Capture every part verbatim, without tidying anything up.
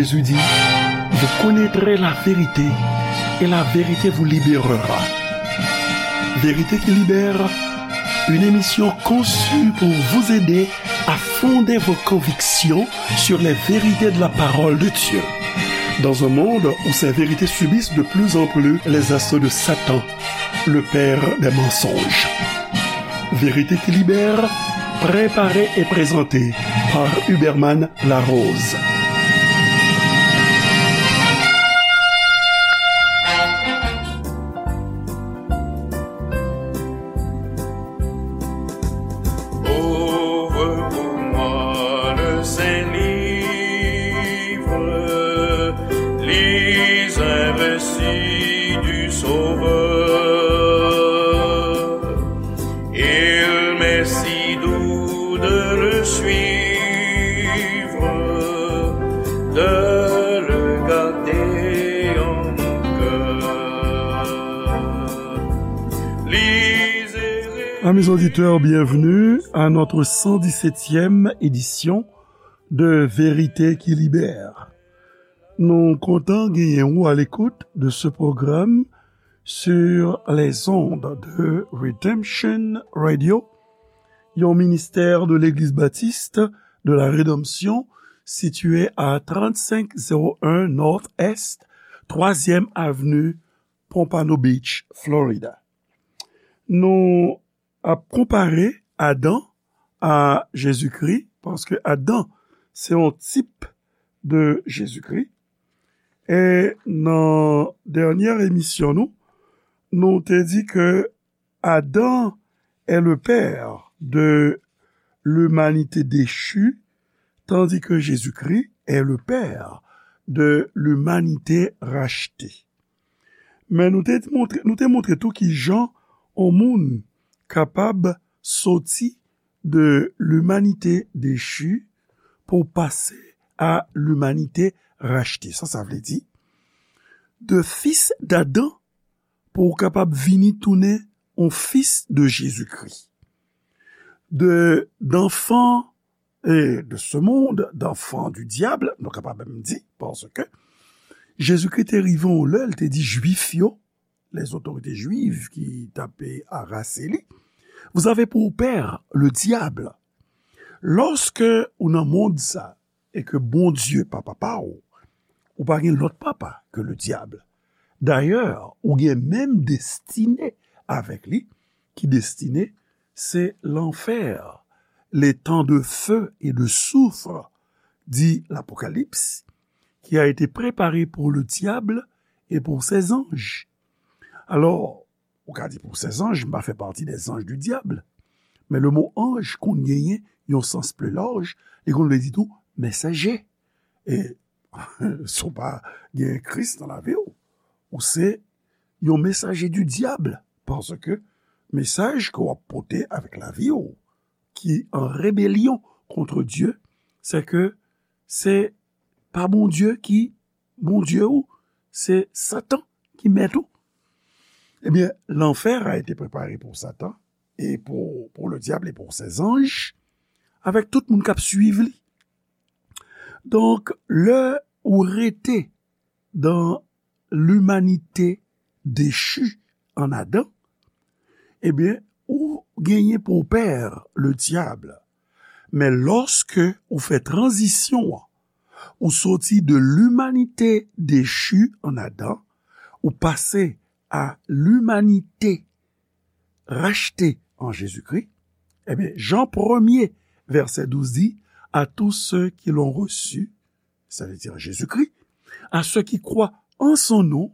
Jésus dit, vous connaîtrez la vérité et la vérité vous libérera. Vérité qui libère, une émission conçue pour vous aider à fonder vos convictions sur les vérités de la parole de Dieu. Dans un monde où ces vérités subissent de plus en plus les assauts de Satan, le père des mensonges. Vérité qui libère, préparée et présentée par Huberman Larose. Ouvre pour moi le Saint-Livre, lis un récit du Sauveur. Il m'est si doux de le suivre, de le garder en mon cœur. Lisez. Amis auditeurs, bienvenue à notre cent dix-septième édition de Vérité qui Libère. Nou kontan genyen ou à l'écoute de ce programme sur les ondes de Redemption Radio, yon ministère de l'Église baptiste de la Rédemption situé à trente-cinq zéro un North Est, troisième avenue, Pompano Beach, Florida. Nou ap konpare Adan a Jezikri, paske Adan se yon tip de Jezikri. E nan dènyè emisyon nou, nou te di ke Adam est le père de l'humanité déchue, tandis que Jésus-Christ est le père de l'humanité rachetée. Men nou te montre, nou te montre tou ki jan yon moun kapab soti de l'humanité déchue pou pase a l'humanité rachetée. Sa, sa vle di, de fis d'Adam pou w kapab vini tounen yon fis de Jezikri. De, d'enfant, e, de ce monde, d'enfant du diable, nou kapab menm di, paske Jezikri te rive yon lè, li te di Jwif yo, les autorités juives ki t ap arase li, vous avez pour père le diable. Lòske ou nan mond sa, e ke Bondye pa papa w, ou pa gen lòt papa ke le diable. Dayè, ou gen menm destine avèk li, ki destine se lanfè, l'étang de feu et de soufre, di Lapokalips, qui a été préparé pour le diable et pour ses anges. Alò, ou ka di pour ses anges, m pa fè pati des anges du diable. Men le mo anj konn genyen yon sans pli laj, li konn vle di tou mesaje. E si w pa gen Kris nan lavi w, ou se yon mesaje du diable, paske mesaj ke w ap pote avèk lavi w, ki an rebelyon kont Dye, se ke se pa Bondye ki Bondye w, se Satan ki mèt ou. Ebyen, l'enfer a été préparé pour Satan et pour, pour le diable et pour ses anges, avèk tout moun k ap swiv li. Donk, lè ou rete dans l'humanité déchue en Adam, ebyen, ou genyen pou pè le diable. Men lòske ou fè tranzisyon an, ou soti de l'humanité déchue en Adam, ou pase a l'humanité rachetée en Jésus-Christ, ebyen, Jan premye, vèsè douz di, à tous ceux qui l'ont reçu, c'est-à-dire Jésus-Christ, à ceux qui croient en son nom,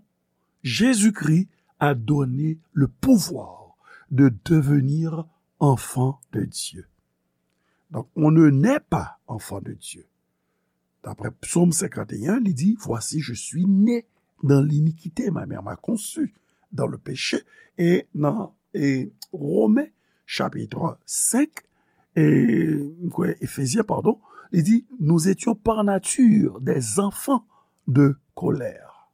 Jésus-Christ a donné le pouvoir de devenir enfant de Dieu. Donc, on ne naît pas enfant de Dieu. D'après Psaume cinquante et un, li di, voici, je suis né dans l'iniquité, ma mère m'a conçu dans le péché. E nan, e, Romen, chapit senk, e, m kwè, Efezyen, padon, li di, nous étions par nature des enfants de colère.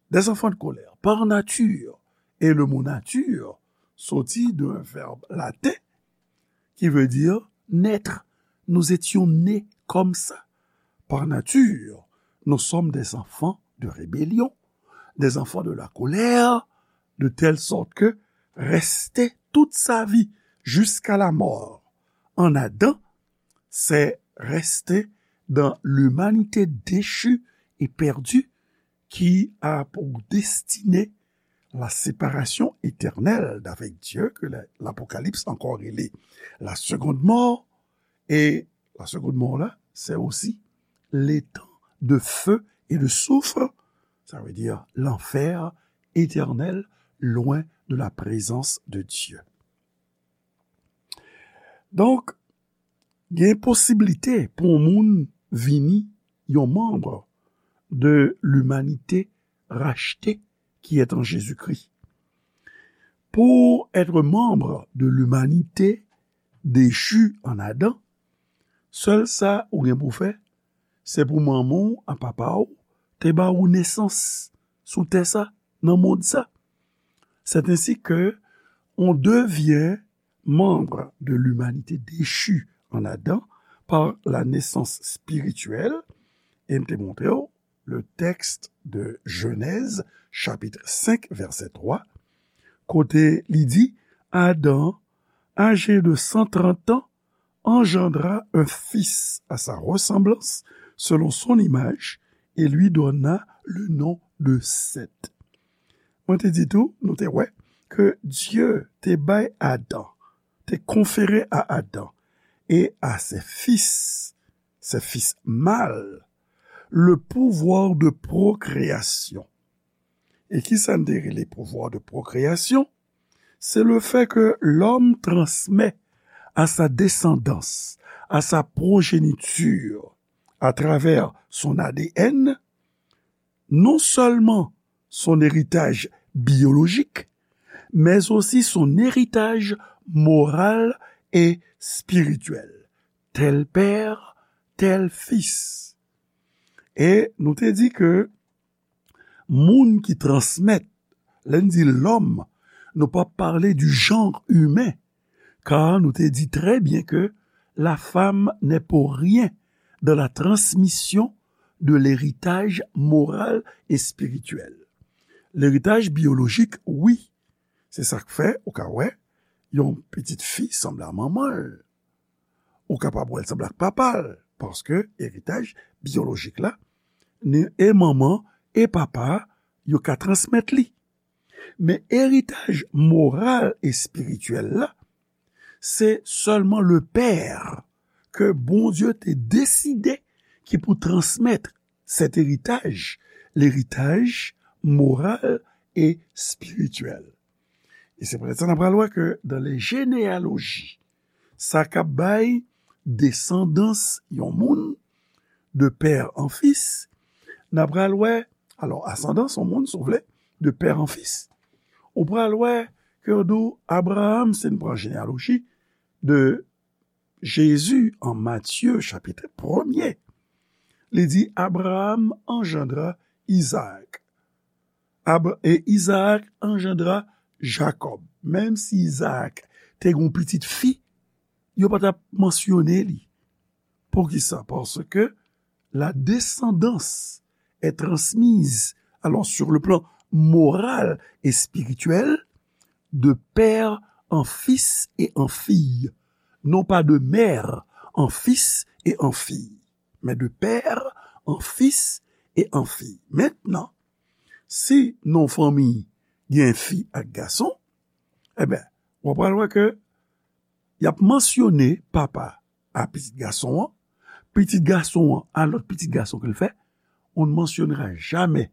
Des enfants de colère, par nature. Et le mot nature soti d'un verbe latin qui veut dire naître. Nous étions nés comme ça, par nature. nous sommes des enfants de rébellion, des enfants de la colère, de telle sorte que rester toute sa vie jusqu'à la mort en Adam, c'est rester dans l'humanité déchue et perdue qui a pour destinée la séparation éternelle d'avec Dieu, que la- l'Apocalypse encore rele la seconde mort. Et la seconde mort là, c'est aussi l'étang de feu et de soufre, ça veut dire l'enfer éternel, loin de la présence de Dieu. Donk, gen posiblite pou yon moun vini yon manm de limanite rachte ki est en Jésus-Christ. Pour être membre de l'humanité déchue en Adam, sèl sa ou gen pou fè, se pou manman w ak papa w te ba ou nesans sou tè sa, nan mond sa. C'est ainsi que on devient membre de l'humanité déchue en Adam par la naissance spirituelle. E m te montre w le texte de Genèse, chapitre cinq, verset trois, kote li di, Adam, âgé de cent trente ans, engendra un fils à sa ressemblance, selon son image, et lui donna le nom de Seth. Mwen te di tou, nou te wè, ke Dye te bay Adan, te konfere a Adan et à ses fils, ses fils mâles, le pouvoir de procréation. E ki sa n te rele pouvoir de procréation? C'est le fait que l'homme transmet à sa descendance, à sa progéniture, à travers son A D N, non seulement son héritage biologique, mais aussi son héritage moral et spirituel. Tel père, tel fils. E nou te di ke moun ki transmèt, lè n di lòm, nou p ap pale du genre humain, car nou te di très bien que la femme n'est pour rien dans la transmission de l'héritage moral et spirituel. Leritaj biyolojik, wi. Se sa k fè, ou ka wè, yon pitit fi sanble a manman l. Ou kapab wè l sanble ak papa l, paske eritaj biyolojik la, ni e manman e papa, yo ka transmèt li. Men eritaj moral e espirityèl la, se sèlman le père ke Bondye te deside ki pou transmèt cet héritage, l'héritage moral et spirituel. E se poutèt sa n ap pral wè ke dans les généalogies, sa k ap bay desandans yon moun de père en fils, n ap pral wè, alò, asandans yon moun, si w vle, de père en fils, ou pral wè ke yo di w Abraham, si n pran jenealoji de Jezi an Matye, chapit premye, li di, Abraham engendra Izaak. Ab-, e Izaak engendra Jakòb. Menm si Izaak te gen yon pitit fi, yo pa t ap mansyone li. Poukisa? Paske la descendance est transmise, alors sur le plan moral et spirituel, de père en fils et en fille, non pas de mère en fils et en fille, mais de père en fils et en fille. Mentnan, si nan yon fanmi gen fi ak gason, e ben, w ap pral wè ke y ap mansyone papa a pitit gason an, pitit gason an a lòt pitit gason ke l fè, on ne mentionnera jamais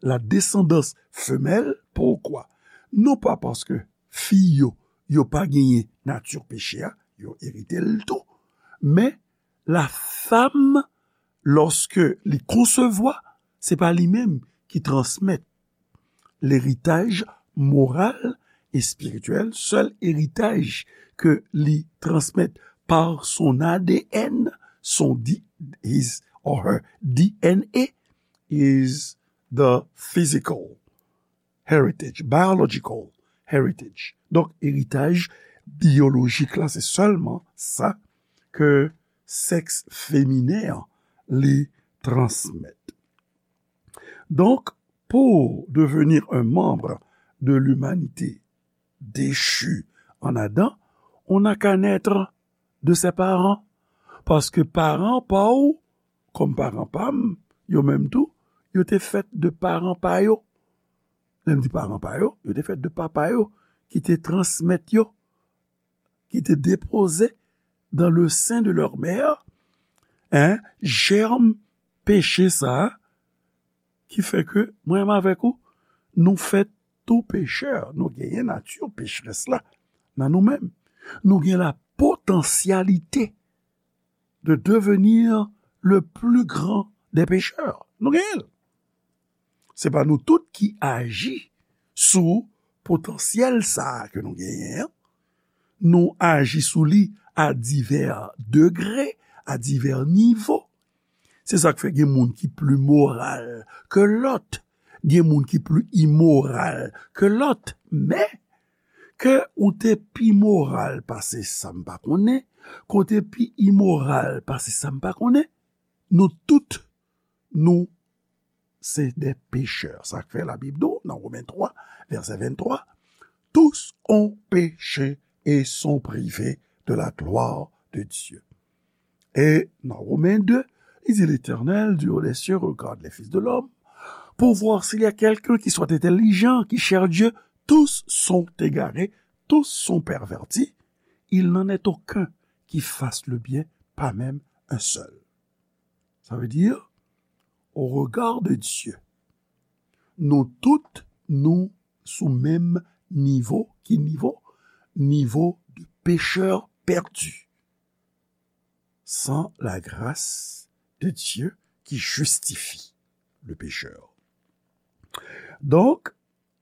la descendance femelle. Pourquoi? Non pa paske fi yo, yo pa genyen nati peche a, yo erite l tou, men la femme, lorsque li konsevwa, se pa li menm ki transmèt leritaj moral e espirityèl, sèl eritaj ke li transmèt par son A D N, son D-, his or her D N A, is the physical heritage, biological heritage. Donk, eritaj biyolojik la, se sèlman sa ke sèks feminen an li transmèt. Donc, pour devenir un membre de l'humanité déchue en Adam, on n'a qu'à naître de ses parents. Paske paran pa w, kòm paran pa m, yo menm tou, yo te fèt de paran pa yo. Lè m di paran pa yo, yo te fèt de papa yo, ki te transmèt yo, ki te depoze dans le sein de leur mère, hein, jèm peche sa a, ki fè ke mwen menm avèk ou, nou fèt tou pechè, nou genyen nati pecherès la nan nou menm. Nou gen la potansyalite de devenir le plus grand des pécheurs. Nou genyen l. Se pa nou tout ki aji sou potansyèl sa a ke nou genyen an. Nou aji sou li a divè degre, a divè nivo. Se sa k fè gen moun ki pli moral ke lòt, gen moun ki pli imoral ke lòt. Men, ke ou te pi moral pase sa m pa konnen, ke w te pi imoral pase sa m pa konnen, nou tout, nou se de pechè. Sa k fè Labib di w nan Women twa, vèsè venntwa, tous ont péché et sont privés de la gloire de Dieu. E nan Women de, li di, L'Éternel, du haut des cieux, regarde les fils de l'homme pour voir s'il y a quelqu'un qui soit intelligent, qui cherche Dieu. Tous sont égarés, tous sont pervertis. Il n'en est aucun qui fasse le bien, pas même un seul. Sa vle di, au regard de Dieu, nou tout, nou sou menm nivo. Ki nivo? Nivo de pécheur perdu. Sans la grâce de Dieu qui justifie le pécheur. Donc,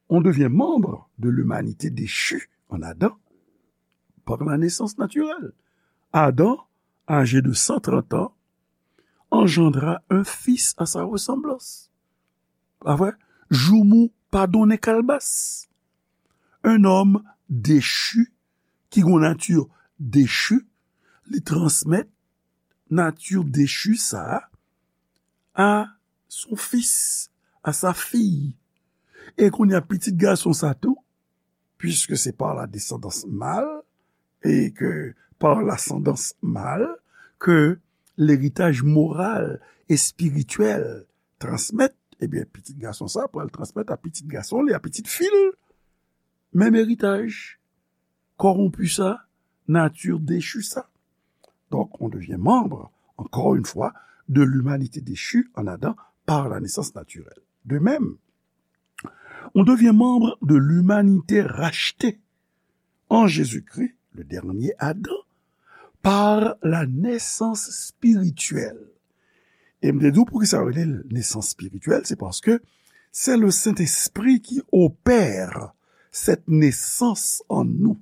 on devient membre de l'humanité déchue en Adam par la naissance naturelle. Adam, âgé de cent trente ans, engendra un fils à sa ressemblance. Pa vre? Joumou pa donnen kalbas. Un homme déchu, ki gon nati dechu, li transmèt nati dechu sa a à son fils, à sa fille. E kounye a, pitit gason sa tou, puisque c'est par la descendance mâle, et que par l'ascendance mâle, que l'héritage moral et spirituel transmèt, ebyen, pitit gason sa pral transmèt a pitit gason li, a pitit fi l, menm eritaj. Koronpi sa, nati dechu sa. Donc, on devient membre, encore une fois, de l'humanité déchue en Adam par la naissance naturelle. De même, on devient membre de l'humanité rachetée en Jésus-Christ, le dernier Adam, par la naissance spirituelle. E m te di w poukisa yo rele l nesans espirityèl, se paske c'est le Saint-Esprit qui opère cette naissance en nous.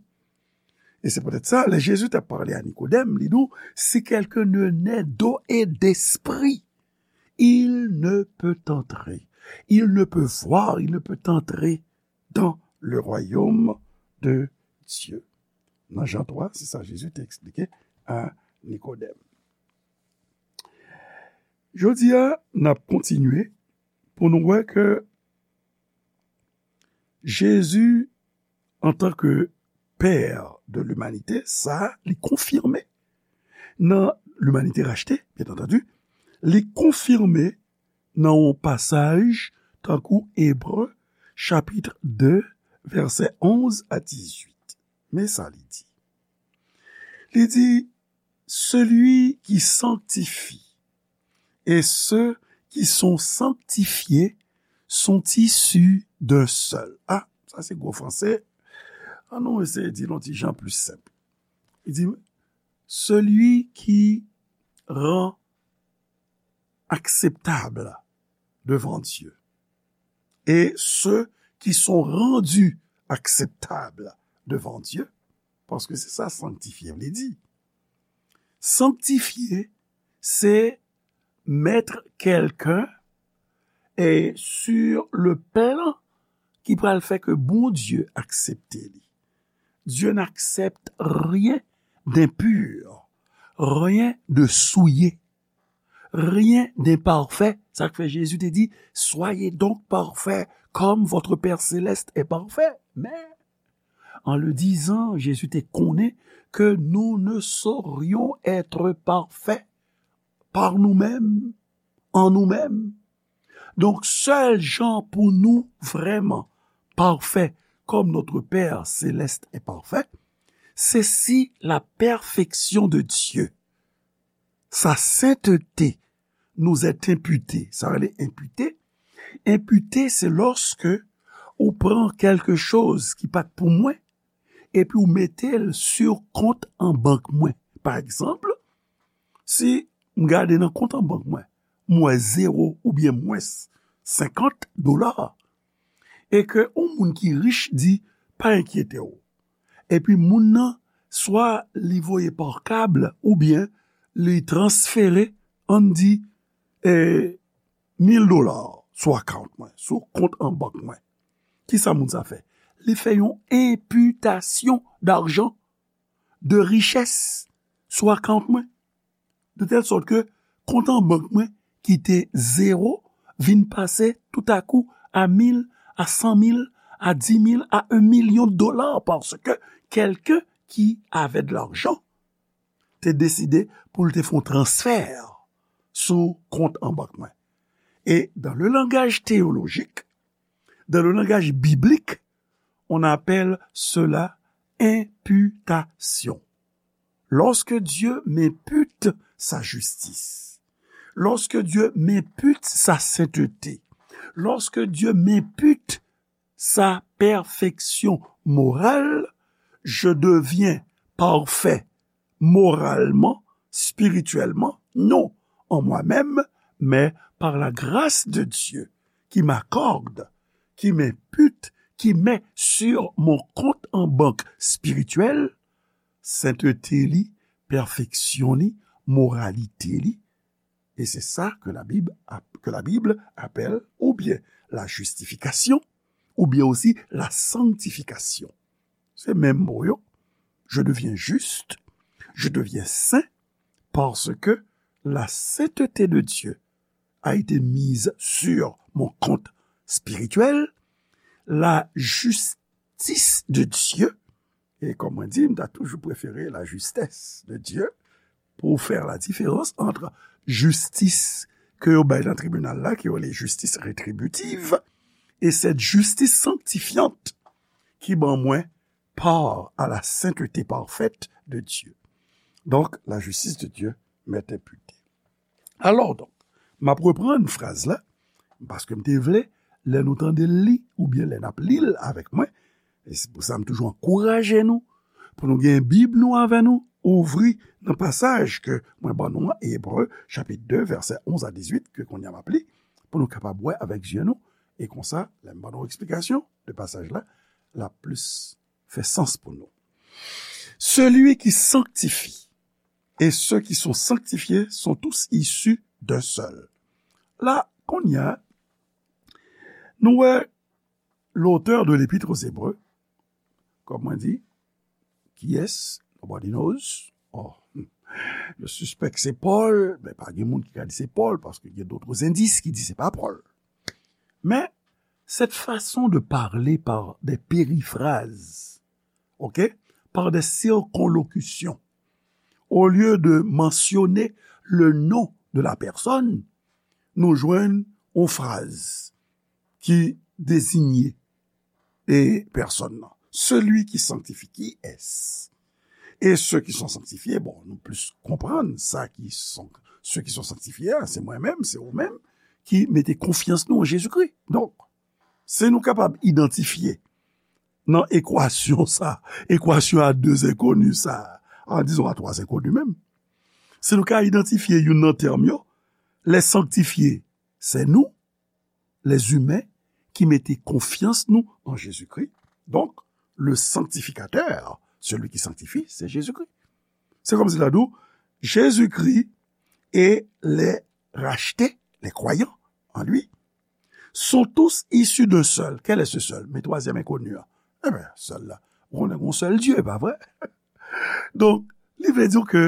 E se poutèt sa, lè Jezi t ap pale a Nikodèm, li di w, si quelqu'un ne naît d'eau et d'esprit, il ne peut entrer. Il ne peut voir, il ne peut entrer dans le royaume de Dieu. Nan Jan twa, se sa Jezi te eksplike a Nikodèm. Jodi a, n ap kontinye pou nou wè ke Jezi, antanke Pè de limanite, sa li konfime nan limanite rachte, byen antandi, li konfime nan yon pasaj tankou Ebre, chapit de, vèsè onz a dizuit. Men sa li di. Li di, celui qui sanctifie et ceux qui sont sanctifiés sont issus d'un seul. Ah, sa se gwo franse. An nou eseye di l yon ti jan pli senp. Li di, celui qui rend acceptable devant Dieu et ceux qui sont rendus acceptables devant Dieu, paske se sa sanktifye vle di. Sanktifye, se mettre quelqu'un, eh, sur le plan ki pral fè ke Bondye aksepte li. Dieu n'accepte rien d'impur, rien de souillé. rien d'imparfait. Sa k fè Jezi te di, soyez donc parfaits comme votre Père céleste est parfait. Men, en le disant, Jezi te konnen ke nou ne saurions être parfaits par nous-mêmes, en nous-mêmes. Donk, sèl jan pou nou vrèman parfè, comme notre Père céleste est parfait, se si la perfection de Dieu, sa sainteté, nous est imputée. Sa rele enpite. Enpite, se lòske ou pran kèlke choz ki pa t pou mwen, epi ou mete l sou kont an bank mwen. Pa egzanp, si m gade nan kont an bank mwen, m wè zewo oubyen mwens senkant dola, e ke yon moun ki rich di, pa enkyete w. Epi moun nan, swa li voye pa kab oubyen li transfere, ann di, eh, mil dola sou account mwen, sou kont an bank mwen. Kisa moun sa fè? Li fè yon imputation d'argent, de richès sou account mwen. De tèl sòt ke kont an bank mwen ki te zewo vin pase toutakou a mil, a san mil, a di mil, a un million de dollars, paske quelqu'un qui avait de l'argent te deside pou l te fè yon transfè sou kont an bank mwen. Et dans le langage théologique, dans le langage biblique, on appelle cela imputation. Lorsque Dieu m'impute sa justice, lorsque Dieu m'impute sa sainteté, lorsque Dieu m'impute sa perfection morale, je deviens parfait moralement, spirituellement, non en moi-même, mais par la grâce de Dieu qui m'accorde, qui m'impute, qui met sur mon compte en banque spirituel, sainteté li, perfection li, moralité li. Et c'est ça que la Bible, que la Bible appelle ou bien la justification, ou bien aussi la sanctification. Se menm mo yo. Je deviens juste, je deviens saint, parce que la sainteté de Dieu a été mise sur mon compte spirituel, la justice de Dieu, e kòm mwen di, m ta toujou prefere la justesse de Dieu pour faire la différence entre justice ke yo bay nan tribinal la, ke yo rele justice rétributive, et cette justice sanctifiante qui ban mwen part à la sainteté parfaite de Dieu. Donc, la justice de Dieu m'est imputée. Alors, donc, m ap reprann fraz la, paske m te vle, lè nou tande l li, oubyen lè n ap li l avèk mwen, e se pou sa m toujou ankouraje nou, pou nou gen Bib nou avè nou, ouvri nan pasaj ke mwen ban nou an, Ebre, chapit de, vèsè onz a dizuit, ke kounye a m ap li, pou nou kapab wè avèk zye nou, e konsa, lè m ban nou eksplikasyon de pasaj la, l ap plis fè sans pou nou. Celui qui sanctifie et ceux qui sont sanctifiés sont tous issus d'un seul. La, kounye a, nou wè l'auteur de l'Épître aux Hébreux, kòm mwen di, kiyès? Nobody knows. Oh, je suspèk se Pòl, men pa gen moun ki ka di se Pòl, paske gen d'autres indices ki di se pa Pòl. Men, cette façon de parler par des périphrases, ok, par des circonlocutions, au lieu de mentionner le nom de la personne, nou jwenn yon fraz ki dezinye e pèsòn nan. Celui qui sanctifie, qui est-ce? Et ceux qui sont sanctifiés, bon, nou plis konprann sa ki son, ceux qui sont sanctifiés, a, se mwen menm, se ou menm, ki mete konfyans nou an Jezikri. Donk, si nou kapab idantifye nan ekwasyon sa, ekwasyon a de zenkoni sa, a, dizon a twa zenkoni menm, si nou ka idantifye youn nan tèm yo, les sanctifiés, c'est nous, les humains, qui mete konfyans nou an Jezikri. Donk, le sanctificateur, celui qui sanctifie, c'est Jésus-Christ. Se kòmsi l ta di w, Jezikri et les rachetés, les croyants en lui, sont tous issus d'un seul. Quel est ce seul? Men twazyèm enkoni an. Eben, sèl la. Ou konnen gen yon sèl Dye, pa vre? Donk, li vle di w ke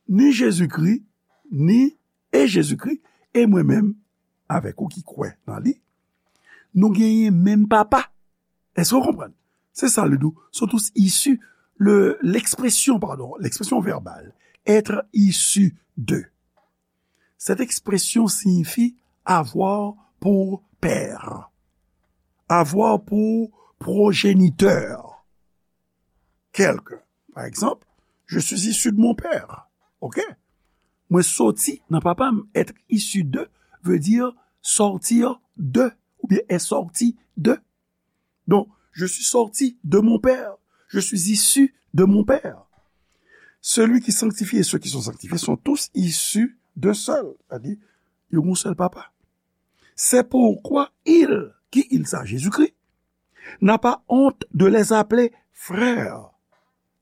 ni Jezikri, ni E Jezikri, e mwen menm, avèk ou ki kwè nan li, nou genyen menm papa. Èske w konprann? Se sa l di w. Sont tous issus, le, l'expression, pardon, l'expression verbale, être issu de. Cette expression signifie avoir pour père, avoir pour progéniteur quelqu'un. Par exemple, je suis issu de mon père. OK? Mwen soti nan papa m. Être issu de veut dire sortir de, ou bien est sorti de. Donc, je suis sorti de mon père. Je suis issu de mon père. Celui qui sanctifie et ceux qui sont sanctifiés sont tous issus d'un seul. Sa di, yo gon sèl papa. C'est pourquoi il, qui il sa, Jésus-Christ, n'a pas honte de les appeler frères.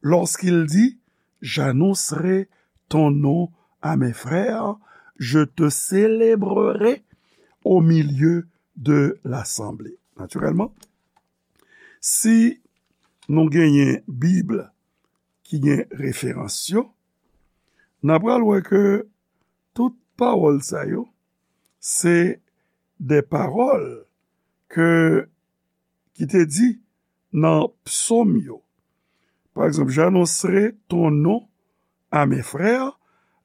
Lorsqu'il dit, j'annoncerai ton nom à mes frères, je te célébrerai au milieu de l'assemblée. Naturellement, si nou genyen Bib ki gen referans yo, n a pral wè ke tout pawòl sa yo, se de pawòl ke, ki te di nan psòm yo. Pa egzanp, j'annoncerai ton nom à mes frères,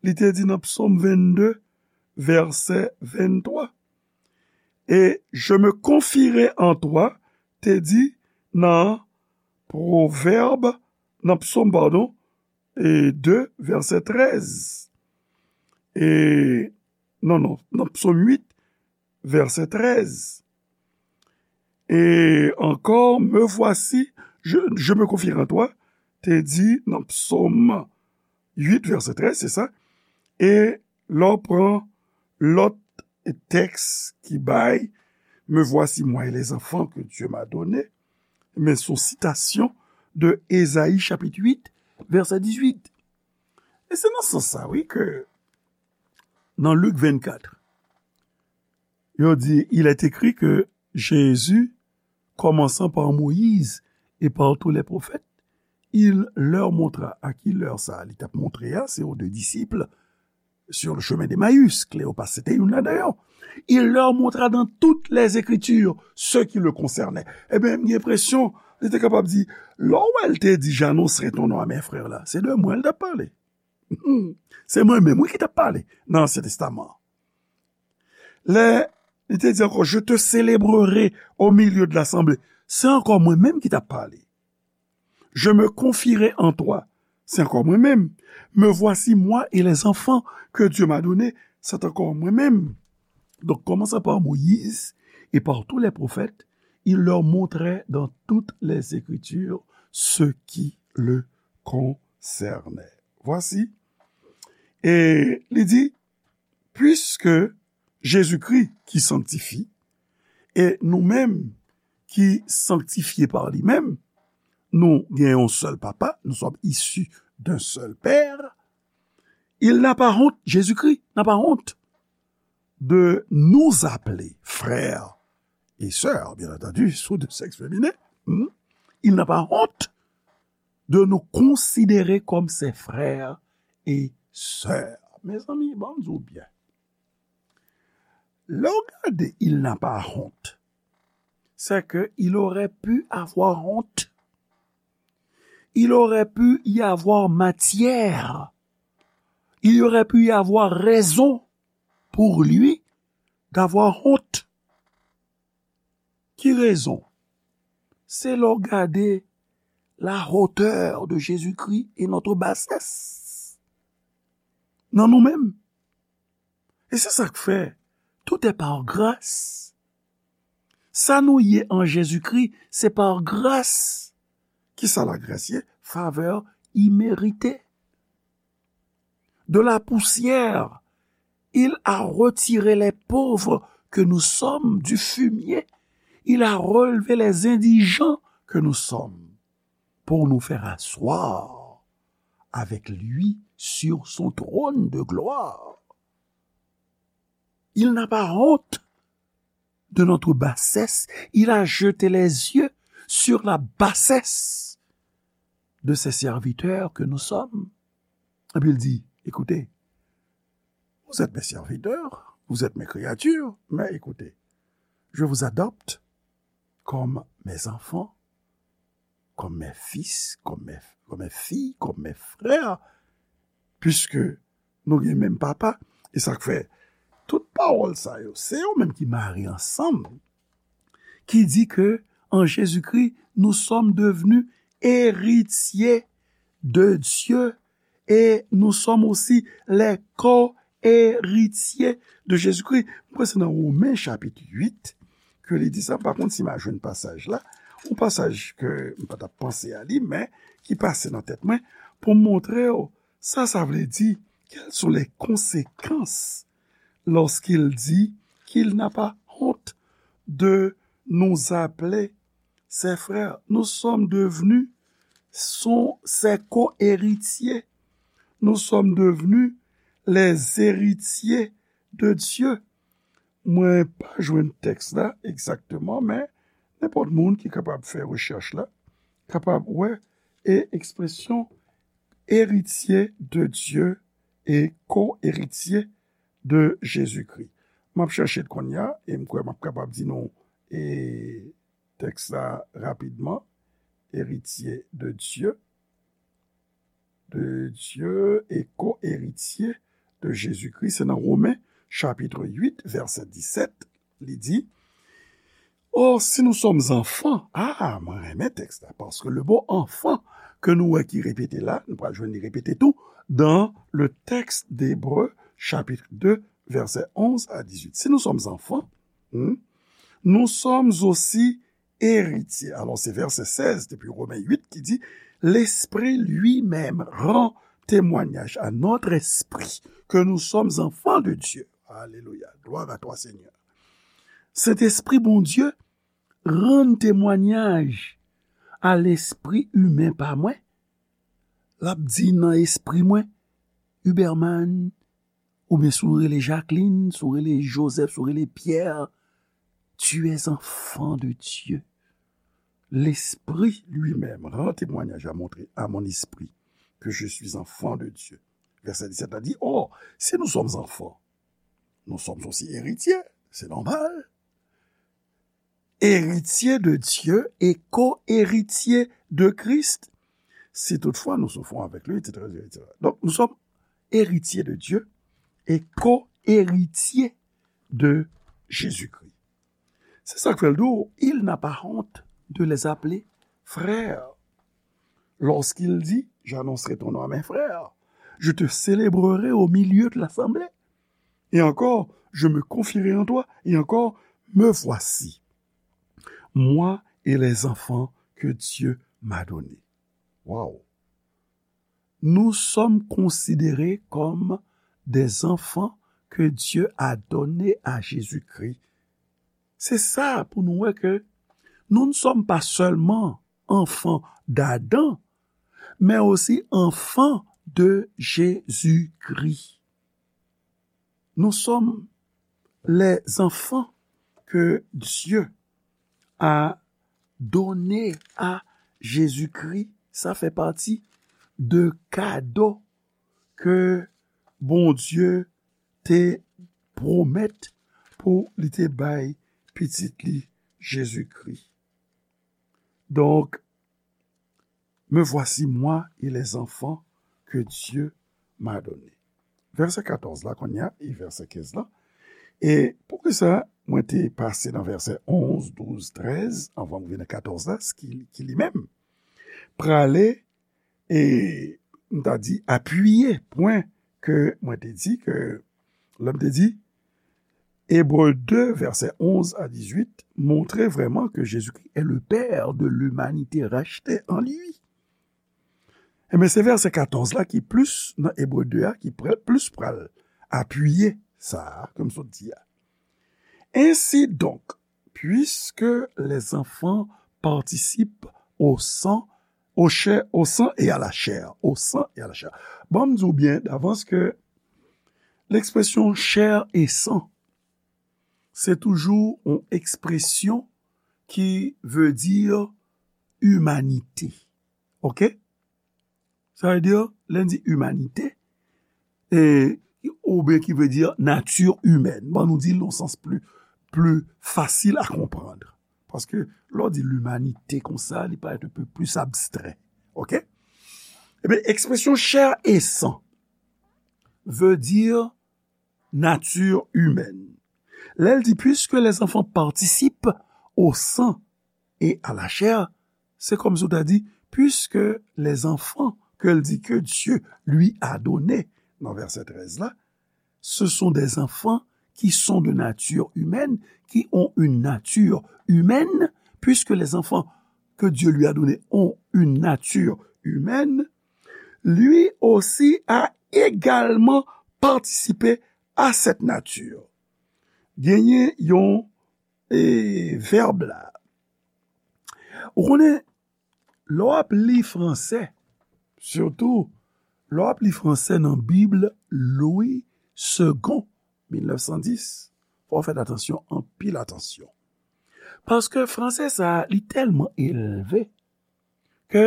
li te di nan psòm vennde, vèsè venntwa. Et je me confierai en toi, te di nan Pwovèb, nan psòm, padon, e de, vèsè trèz. E, non, non, nan psòm uit, vèsè trèz. Et encore, me voici, je, je me confierai en toi, te di nan psòm uit, vèsè trèz, se sa. E lè w pran lòt tèks ki bay, me voici moi et les enfants que Dieu m'a donnés, men se yon sitasyon de Ezayi chapit uit, vèsè dizuit. E se nan sans sa, wi, ke nan Lik vennkat, yo di, il est écrit que Jésus, commençant par Moïse et par tous les prophètes, il leur montra. A ki lè sa li t ap montre a, se aux deux disciples sur le chemin d'Emmaüs, Cléopas, se te youn ladan yo. Il leur montra dans toutes les Écritures ce qui le concernait. Ebyen, m gen enpresyon, li te kapab di, lè w wè l te di, j'annoncerai ton nom à mes frères la, se de mwen l t ap pale. Se mwen menm, wi, ki t ap pale nan Ansyen Testaman an. Lè li te di ankò, je te célébrerai au milieu de l'assemblée, se ankò mwen menm ki t ap pale. Je me confierai en toi, se ankò mwen menm. Me voici moi et les enfants que Dieu m'a donnés, se ankò mwen menm. Donc, commençant par Moïse et par tous les prophètes, il leur montrait dans toutes les Écritures ce qui le concernait. Voici. E li di, puisque Jésus-Christ qui sanctifie, e nou menm ki sanktifye pa li menm, nou gen yon sèl papa, nous sommes issus d'un seul père, il n'a pas honte, Jésus-Christ n'a pas honte de nous appeler frères et sœurs, bien entendu, sous de sexe féminin. Hmm? Il n'a pas honte de nous considérer comme ses frères et sœurs. Mezanmi, ban m di w byen. Lè w gade, il n'a pas honte, c'est que il aurait pu avoir honte. Il aurait pu y avoir matière. Il aurait pu y avoir raison pour lui d'avoir honte. Ki rezon? Se lè w gade la hauteur de Jésus-Christ et notre bassesse nan nou menm. E se sa k fè, tout est par grâce. Sa nou ye an Jezikri, se pa gras. Kisa lagras ye? Favè imerite. De la poussière, il a retiré les pauvres que nous sommes du fumier. Il a relevé les indigents que nous sommes pour nous faire asseoir avec lui sur son trône de gloire. Il n'a pas honte de notre bassesse. Il a jeté les yeux sur la bassesse de ses serviteurs que nous sommes. Epi l di, écoutez, vous êtes mes serviteurs, vous êtes mes créatures, mais écoutez, je vous adopte comme mes enfants, comme mes fils, comme mes, comme mes filles, comme mes frères, puisque nou gen menm papa. E sa k fè tout pawòl sa yo, se yo menm ki mare ansanm, ki di ke en Jésus-Christ, nous sommes devenus héritiers de Dieu et nous sommes aussi les co-héritiers de Jésus-Christ. Mwen kwè se nan Women chapit uit ke li di sa. M pa konn si m a jwenn pasaj la, yon pasaj ke m pa t ap panse a li, men ki pase nan tèt mwen pou m montre w sa sa vle di, quelles sont les conséquences lorsqu'il dit qu'il n'a pas honte de nous appeler ses frères. Nous sommes devenus son, ses co-héritiers. Nous sommes devenus les héritiers de Dieu. Mwen pa jwenn tèks la egzakteman, men nenpòt moun ki kapab fè rechèch la kapab wè e ekspresyon héritier de Dieu et co-héritier de Jésus-Christ. M ap chèche l kounye a e m kwè m ap kapab di nou e tèks la rapidman. Héritier de Dieu, de Dieu et co-héritier de Jésus-Christ. Se nan Women chapit uit, vèsè disèt, li di, Or, si nous sommes enfants, ah, mwen renmen tèks la, paske le mot enfant ke nou wè ki repete la, nou pral jwenn li repete tou dans le texte d'Hébreux, chapitre deux, versets onze à dix-huit. Si nous sommes enfants, hmm, nous sommes aussi héritiers. Alors, c'est verset seize depuis Romains huit qui dit, L'Esprit lui-même rend témoignage à notre esprit que nous sommes enfants de Dieu. Alléluia. Gloire à toi, Seigneur. Sentespri Bondye rann temwayaj a lespri imen pa mwen. L ap di nan espri mwen, Huberman, oubyen si w rele Jacqueline, si w rele Joseph, si w rele Pierre, tu es enfant de Dieu. L'Esprit lui-même rend témoignage à mon, à mon esprit que je suis enfant de Dieu. Verset dix-sept la dit, Or, si nous sommes enfants, nous sommes aussi héritiers, c'est normal. Héritiers de Dieu et co-héritiers de Christ, si toutefois nous souffrons avec lui, et cetera, et cetera. Donc, nous sommes héritiers de Dieu et co-héritiers de Jésus-Christ. Se sa k fè l di w, il n'a pas honte de les appeler frères. Lorsqu'il dit, J'annoncerai ton nom à mes frères, je te célébrerai au milieu de l'assemblée. Et encore, je me confierai en toi. Et encore, me voici, moi et les enfants que Dieu m'a donnés. Wow! Nous sommes considérés comme des enfants que Dieu a donnés à Jésus-Christ. Se sa pou nou wè ke nous ne sommes pas seulement enfants d'Adam, mais aussi enfants de Jésus-Christ. Nous sommes les enfants que Dieu a donnés à Jésus-Christ. Sa fè pati de kado ke Bondye te pwomèt pou li te bay pitit li Jezikri. Donk, me voici moi et les enfants que Dieu m'a donnés. Vèsè katòz la kounye a, e vèsè kenz la. E poukisa mwen te pase nan vèsè onz, douz, trèz, anvan m rive nan katòz la, ki, ki li menm prale e m ta di apiye pwen ke mwen te di ke lè m te di Hébreux deux, versets onze à dix-huit, montre vraiment que Jésus-Christ est le Père de l'humanité rachetée en lui. Ebyen, se vèsè katòz la ki plis nan Ebre de a, ki pral, plis pral apiye sa a, ke m sot di a. Ainsi donc, puisque les enfants participent au sang, au chair, au sang et à la chair, au sang et à la chair. Ban m di w byen davans ke lekspresyon chair et sang, se toujou yon ekspresyon ki vle di imanite. Oke? Sa vle di, lè n di imanite, e, oubyen ki vle di nature humaine. Bon, nou di l nan sans pli, pli fasil a konprann. Paske lè w di limanite konsa, li parèt un peu plus abstrait. Oke? Ebyen, ekspresyon chair et sang veut dire nature humaine. Lè l di, puisque les enfants participent au sang et à la chair, se kòmsi w ta di, puisque les enfants, ke l di, que Dieu lui a donné, nan vèsè trèz la, ce sont des enfants qui sont de nature humaine, qui ont une nature humaine, puisque les enfants que Dieu lui a donnés ont une nature humaine, lui aussi a également participé à cette nature. Genyen yon e, vèb la. Ou konnen, lè w ap li fransè, sitou lè w ap li fransè nan Bib Louis Segond, mil nèf san dis, fò w fè atansyon, anpil atansyon. Paske fransè sa a, li tèlman elve ke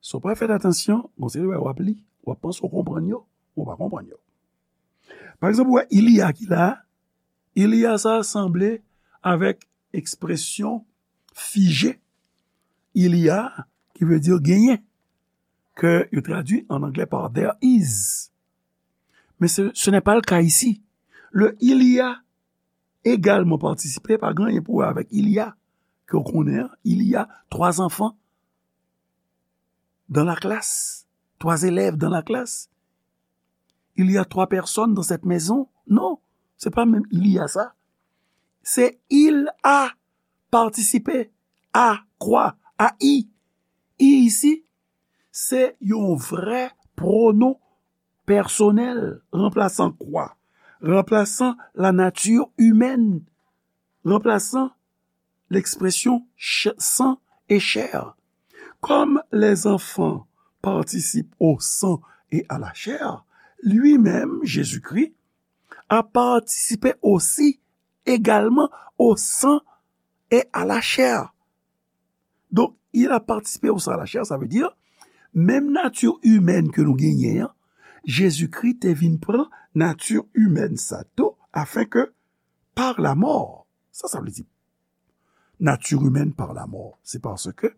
si w pa fè atansyon, gon seri bagay w ap li, w ap panse w konprann yo, men w pa konprann yo. Pa egzanp, ou wè il y a ki la a, il y a sa a sanble avèk ekspresyon fije, il y a, ki vle di genyen, ke yo tradui an anglè pa there is. Men se, ce n'est pas le cas ici. Le il y a également participé pa gen anyen pou wè avèk il y a, ke w konnen an, il y a trois enfants dans la classe, trois élèves dans la classe. Il y a trois personnes dans cette maison. Non, se pa menm il y a sa. Se il a participé à quoi? A i. I isi, se yon vrè pwonon pèsonèl, ranplasan kwa? Ranplasan la nature humaine, ranplasan l'expression ch- sang et chair. Comme les enfants participent au sang et à la chair, lui-même, Jésus-Christ, a participé aussi également au sang et à la chair. Donk, il a participé au sang et à la chair, sa vle di, menm nati imèn ke nou genyen an, Jezikri te vin pran nati imèn sa tou, afin que par la mort, sa, sa vle di, nature humaine par la mort. C'est parce que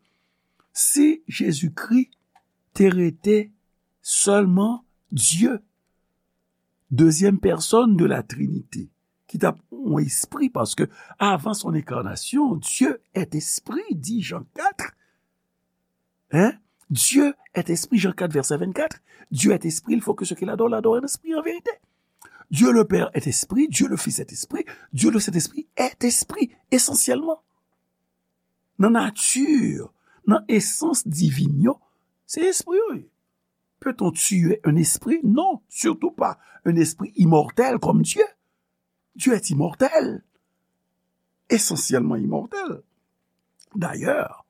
si Jésus-Christ te rete seulement Dieu, deuxième personne de la Trinité, ki t ap yon espri, paske avan son incarnation, Dieu est esprit, dit Jean quatre. Hein? Dieu est esprit, Jean quatre, verset vingt-quatre. Dieu est esprit, il faut que ceux qui l'adorent l'adorent en esprit et en vérité. Dieu le Père est esprit, Dieu le Fils est esprit, Dieu le Saint-Esprit est esprit, essentiellement. Nan nati, nan esans divin yo, se espri yo ye. Peut-on tuer un esprit? Non, surtout pas un esprit immortel comme Dieu. Dieu est immortel, essentiellement immortel. D'ailleurs,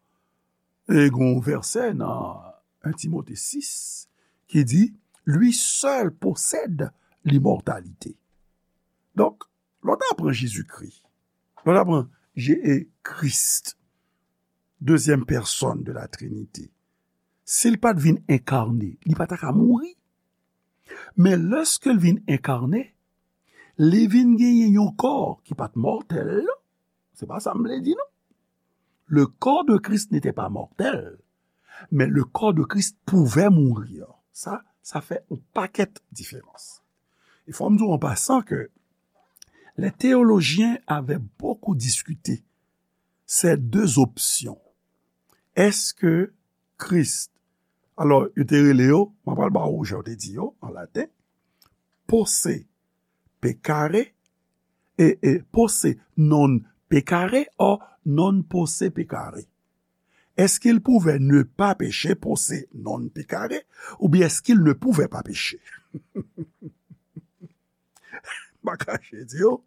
e gen yon vèsè nan un Timote sis ki di, lui seul possède l'immortalité. Donk, lè w ta pran Jezikri, lè w ta pran Je- e Kris, deuxième personne de la Trinité, si l pa t vin enkarne, li pa ta ka mouri. Men lèske l vin enkarne, li vin genyen yon kò ki pa t mòtèl, non. Se pa sa m vle di, non. Le corps de Christ n'était pas mortel, mais le corps de Christ pouvait mourir. Ça, ça fait un paquet de différence. Il faut me dire en passant que les théologiens avaient beaucoup discuté ces deux options. Est-ce que Christ, alors, yo te rele yo, mwen pral ba ou jan yo te di yo, an laten, posse peccare, e, e posse non peccare, o non posse peccare. Est-ce qu'il pouvait ne pas pécher, posse non peccare, ou bien est-ce qu'il ne pouvait pas pécher? M pa kache di yo,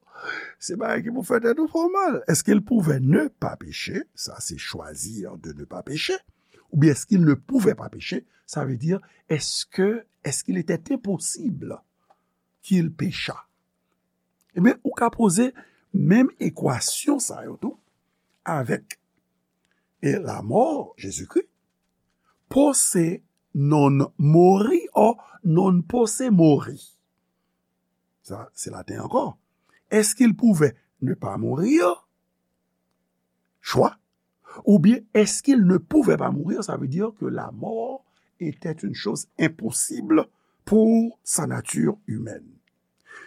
se bagay ki pou fè tèt ou fè w mal. Est-ce qu'il pouvait ne pas pécher? Ça, c'est choisir de ne pas pécher. Ou bien est-ce qu'il ne pouvait pas pécher? Ça veut dire, est-ce que, est-ce qu'il était impossible qu'il péchât? Ebyen, ou ka poze menm ekwasyon sa yo tou avèk e lamò Jezikri. Posse non mori o non posse mori. Sa, se laten ankò. Est-ce qu'il pouvait ne pas mourir? Choix. Ou bien, est-ce qu'il ne pouvait pas mourir? Ça veut dire que la mort était une chose impossible pour sa nature humaine.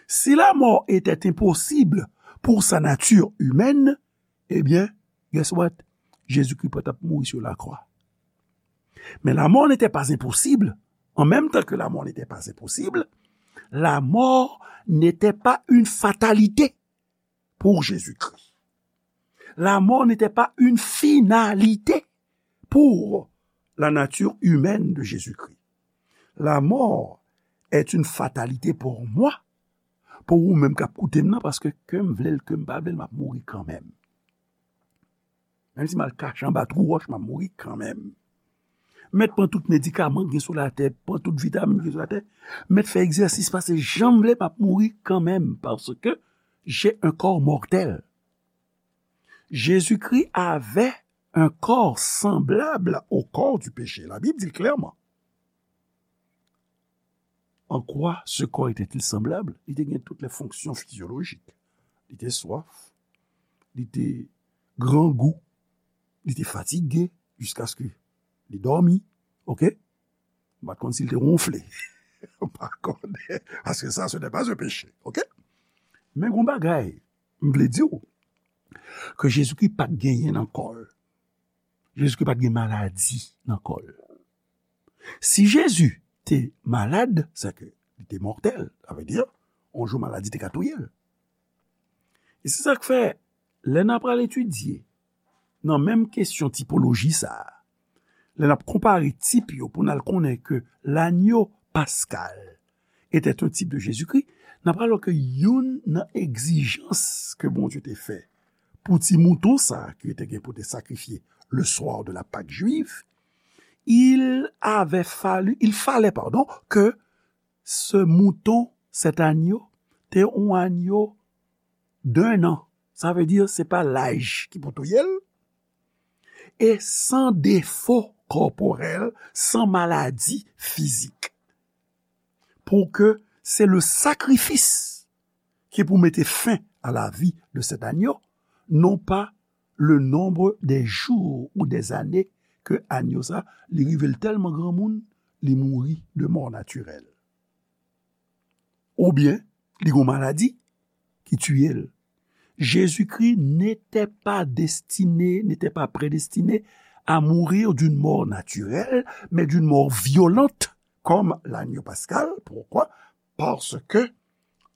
Si la mort était impossible pour sa nature humaine, eh bien, guess what? Jésus-Christ pa t ap mouri sur la croix. Mais la mort n'était pas impossible. En même temps que la mort n'était pas impossible, la mort n'était pas une fatalité pour Jésus-Christ. La mort n'était pas une finalité pour la nature humaine de Jésus-Christ. La mort est une fatalité pour moi, pour ou menm k ap koute m nan, paske ke m vle l, ke m pa vle l, m ap mouri kanmenm. Menm si m al kache anba twou wòch, m ap mouri kanmenm. Mèt pran tout medikaman ki gen sou latè, pran tout vitamin ki gen sou latè, mèt fè egzèsis, pase jan m vle, m ap mouri kanmenm, parce que j'ai un corps mortel. Jésus-Christ avait un corps semblable au corps du péché. La Bible dit le clairement. En quoi ce corps était-il semblable? Li te gen tout les fonctions physiologiques. Li te swaf, li te grangou, li te fatige, jiskaske li dòmi, oke? M pa t konn si l te wonfle. M pa konnen, paske sa, ce n'est pas un péché, oke? Men gon bagay, m vle di w, ke Jezikri pa t genyen nan kò l. Jezikri pa t gen maladi nan kò l. Si Jezi te malad, sèke li te mòtèl, sa vle di, yon jou maladi te ka touye l. E se sa k fè, lè n ap pral etidye nan menm kesyon tipoloji sa a, lè n ap konpare tip yo pou n al konnen ke l'agneau pascal était un type de Jésus-Christ, n ap pral wè ke youn nan egzijans ke Bondye te fè pou ti mouton sa a ki te gen pou te sakrifye le soir de la Pâque juive, il avait fallu, il fallait, pardon, que ce mouton, cet agneau, te yon agneau d'un an. Sa vle di, se pa laj ki pou touye l. E san defo kòporèl, san maladi fizik. Pour que c'est le sacrifice ki pou mete fen à la vie de cet agneau, non pas le nombre des jours ou des années ke agneau sa, li rive l tèlman granmoun, li mouri de mort naturelle. Oubyen, li gon maladi ki tiye l. Jésus-Christ n'était pas destiné, n'était pas prédestiné à mourir d'une mort naturelle, mais d'une mort violente, comme l'agneau pascal. Pourquoi? Parce que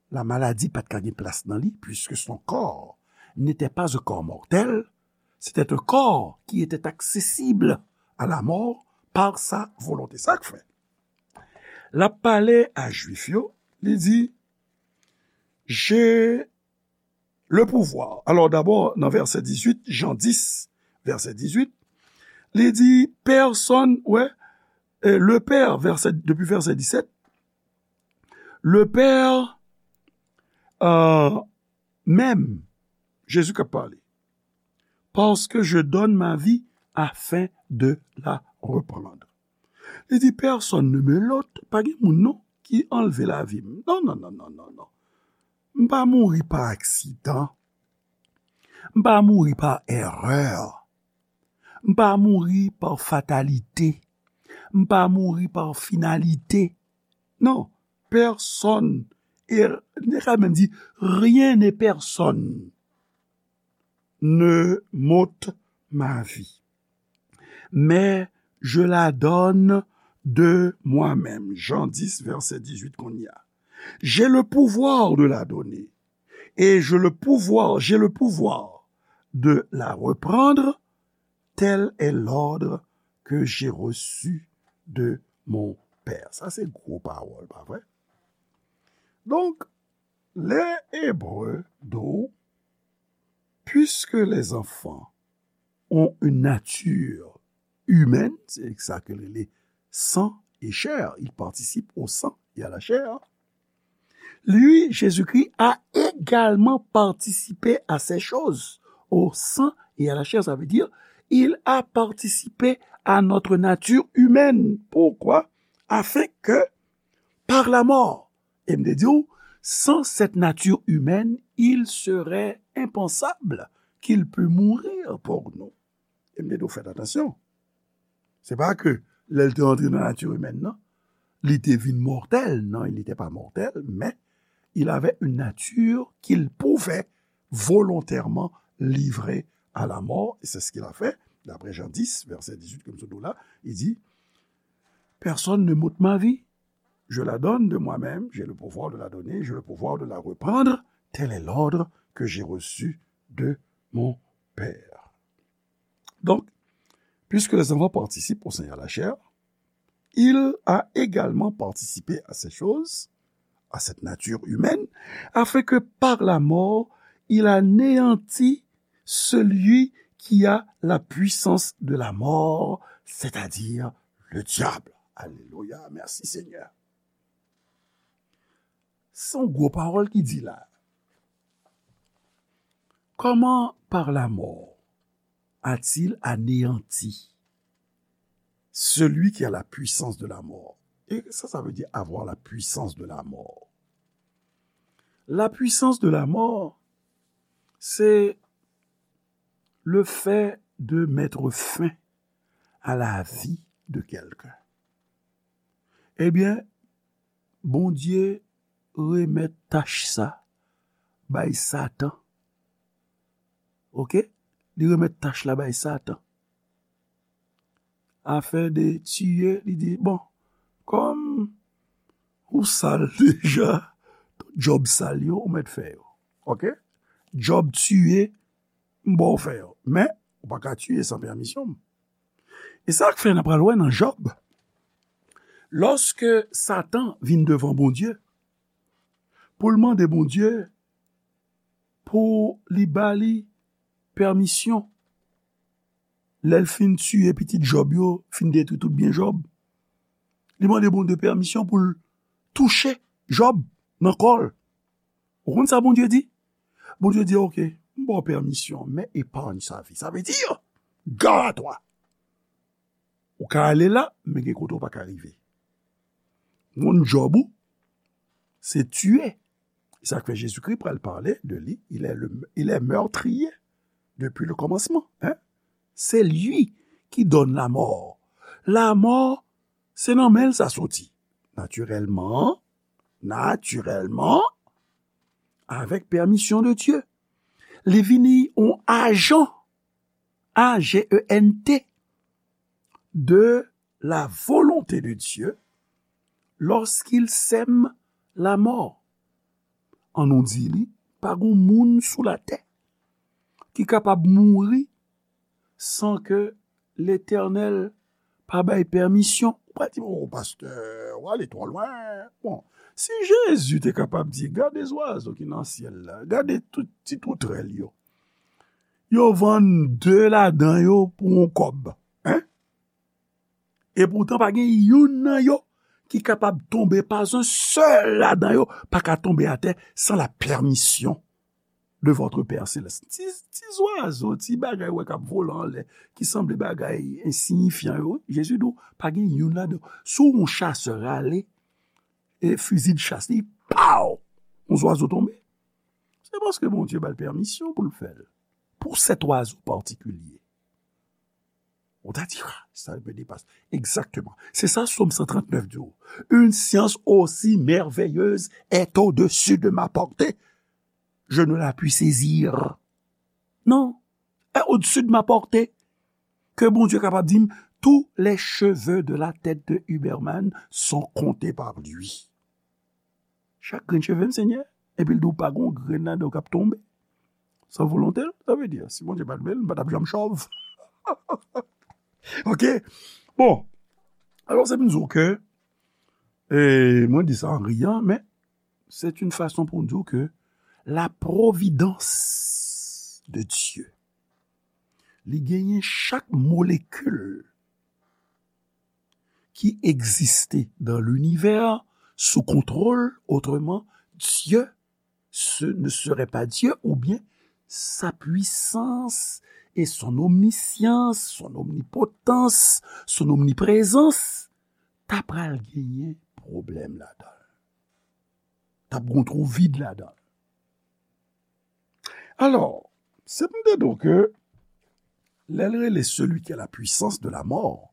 la maladie pa t ka gen plas nan li, puisque son corps n'était pas un corps mortel, c'était un corps qui était accessible à la mort par sa volonté. Sa k fè, l ap pale a Jwif yo, li di, j'ai le pouvoir. Alors d'abord, nan vèsè dizuit, Jan dis, vèsè dizuit, li di, pèsonn, wè, euh, le Père, vèsè, depi vèsè disèt, le Père, euh, même, Jésus k ap pale, parce que je donne ma vie afin de la reprendre. Li di, personne ne me l'ôte, pa gen moun non ki anlve lavi m. Non, non, non, non, non, non. M pa mouri pa aksidan. M pa mouri pa erè. M pa mouri pa fatalite. M pa mouri pa finalite. Non, personne, et li ka menm di, rien et personne ne m'ôte ma vie, mais je la donne de moi-même. Jan dis, vèsè dizuit, kounye a. J'ai le pouvoir de la donner, et je le pouvoir, j'ai le pouvoir de la reprendre, tel est l'ordre que j'ai reçu de mon Père. Sa se gwo pawòl, pa vre? Donk, lè Ebre di w, puisque les enfants ont une nature humaine, se sa ke rele sang et chair, il participe au sang et à la chair. Lui, Jésus-Christ a également participé à ces choses, au sang et à la chair, ça veut dire, il a participé à notre nature humaine. Pourquoi? Afin que, par la mort, e m te di w, Sans cette nature humaine, il serait impensable qu'il pût mourir pour nous. E m te di w fè atansyon. Se pa ke lè l te antre nan nati imèn nan, li te vin mòtèl. Non, il n'était pas mortel, mais il avait une nature qu'il pouvait volontairement livrer à la mort. Et c'est ce qu'il a fait. D'après Jean dix, verset dix-huit, ke m sot di w la, il dit, personne ne m'ôte ma vie. Je la donne de moi-même, j'ai le pouvoir de la donner, j'ai le pouvoir de la reprendre. Tel est l'ordre que j'ai reçu de mon Père. Donc, puisque les enfants participent au Seigneur la chair, il a également participé à ces choses, à cette nature humaine, afin que par la mort, il anéantit celui qui a la puissance de la mort, c'est-à-dire le diable. Alléluia, merci Seigneur. Se yon gwo pawòl ki di la. Comment par la mort a-t-il anéanti celui qui a la puissance de la mort? Et ça, ça veut dire avoir la puissance de la mort. La puissance de la mort, c'est le fait de mettre fin à la vie de quelqu'un. Ebyen, Bondye remèt tach sa bay Satan. Oke? Li remèt tach la bay Satan. Afè de tiye, li di, bon, kòm ou sal deja, tout djòb sal yo, ou mèt fè yo. Oke? Djòb tiye, m ba w fè yo. Men, ou pa ka tiye san pèmisyon m. E sa k fè n ap pral wè nan Jòb. Lòske Satan vin devan Bondye, pou l mande Bondye pou li ba li pèmisyon, lè l fin tiye pitit Jòb yo, fin detwi tout byen Jòb, li mande Bondye pèmisyon pou l touche Jòb nan kò l. Ou konn sa Bondye di? Bondye di, oke, m ba w pèmisyon, men épargne sa vie. Sa vle di, gare à toi. Ou ka ale la, men gen kote ou pa ka rive. Moun Jòb ou, se tiye. E sa k fè Jezikri pral pale de li, il est le, il est meurtrier depuis le commencement. Hein? C'est lui qui donne la mort. La mort, se nan men l sa soti. Natirèlman, natirèlman, avèk pèmisyon de Dye. Li vini yon ajan, A G E N T, de la volonté de Dieu lorsqu'il sème la mort. An nou di li, pa gon moun sou latè ki kapab mouri san ke Letènèl pa bay pèmisyon. Ou pa di, o pastè, ou ale twò lwen. Bon, si Jezi te kapab di, gade zwazo ki nan syèl la, gade tout ti toutrèl yo. Yo vann de ladan yo pou yon kòb. Hein? Epoutan, pa gen youn nan yo ki kapab tonbe, pa yon sèl ladan yo pa ka tonbe atè san la pèmisyon de votre Père Céleste. Ti, ti zwazo, ti bagay wè k ap vole anlè, ki sanble bagay ensiyifyan yo, Jezi di w, pa gen youn ladan yo. Si w yon chasè rale, e fizi de chas li, paw! Yon zwazo tonbe. Se paske Bondye ba l pèmisyon pou l fè l. Pou sèt oizo patikilye. Ou ta di, ah, sa me dépasse. Exactement. C'est ça, Psaume cent trente-neuf di w. Une science aussi merveilleuse est au-dessus de ma portée. Je ne la puis saisir. Non. Est au-dessus de ma portée. Ke Bondye kapab di m, tous les cheveux de la tête de Huberman sont comptés par lui. Chak grenn cheve m, Senyè, epi l di w pa gon grenn ladan w k ap tonbe. San volonte l, sa vle di, si Bondye pa t vle l, m pa t ap janm chòv. Ok? Bon, alò se pou n di w ke, e, mwen di sa an riyan, men c'est une façon pou n di w ke la providence de Dieu, li genyen chak molekil ki egziste dans l'univers sous contrôle, autrement, Dieu ce ne serait pas Dieu, oubyen sa pwisans e son omnisyans, son omnipotans, son omniprezans, ta pral genyen pwoblèm ladan l. t ap gen yon twou vid ladan l. Alò, se pou m te di w ke lè l rele celui qui a la puissance de la mort,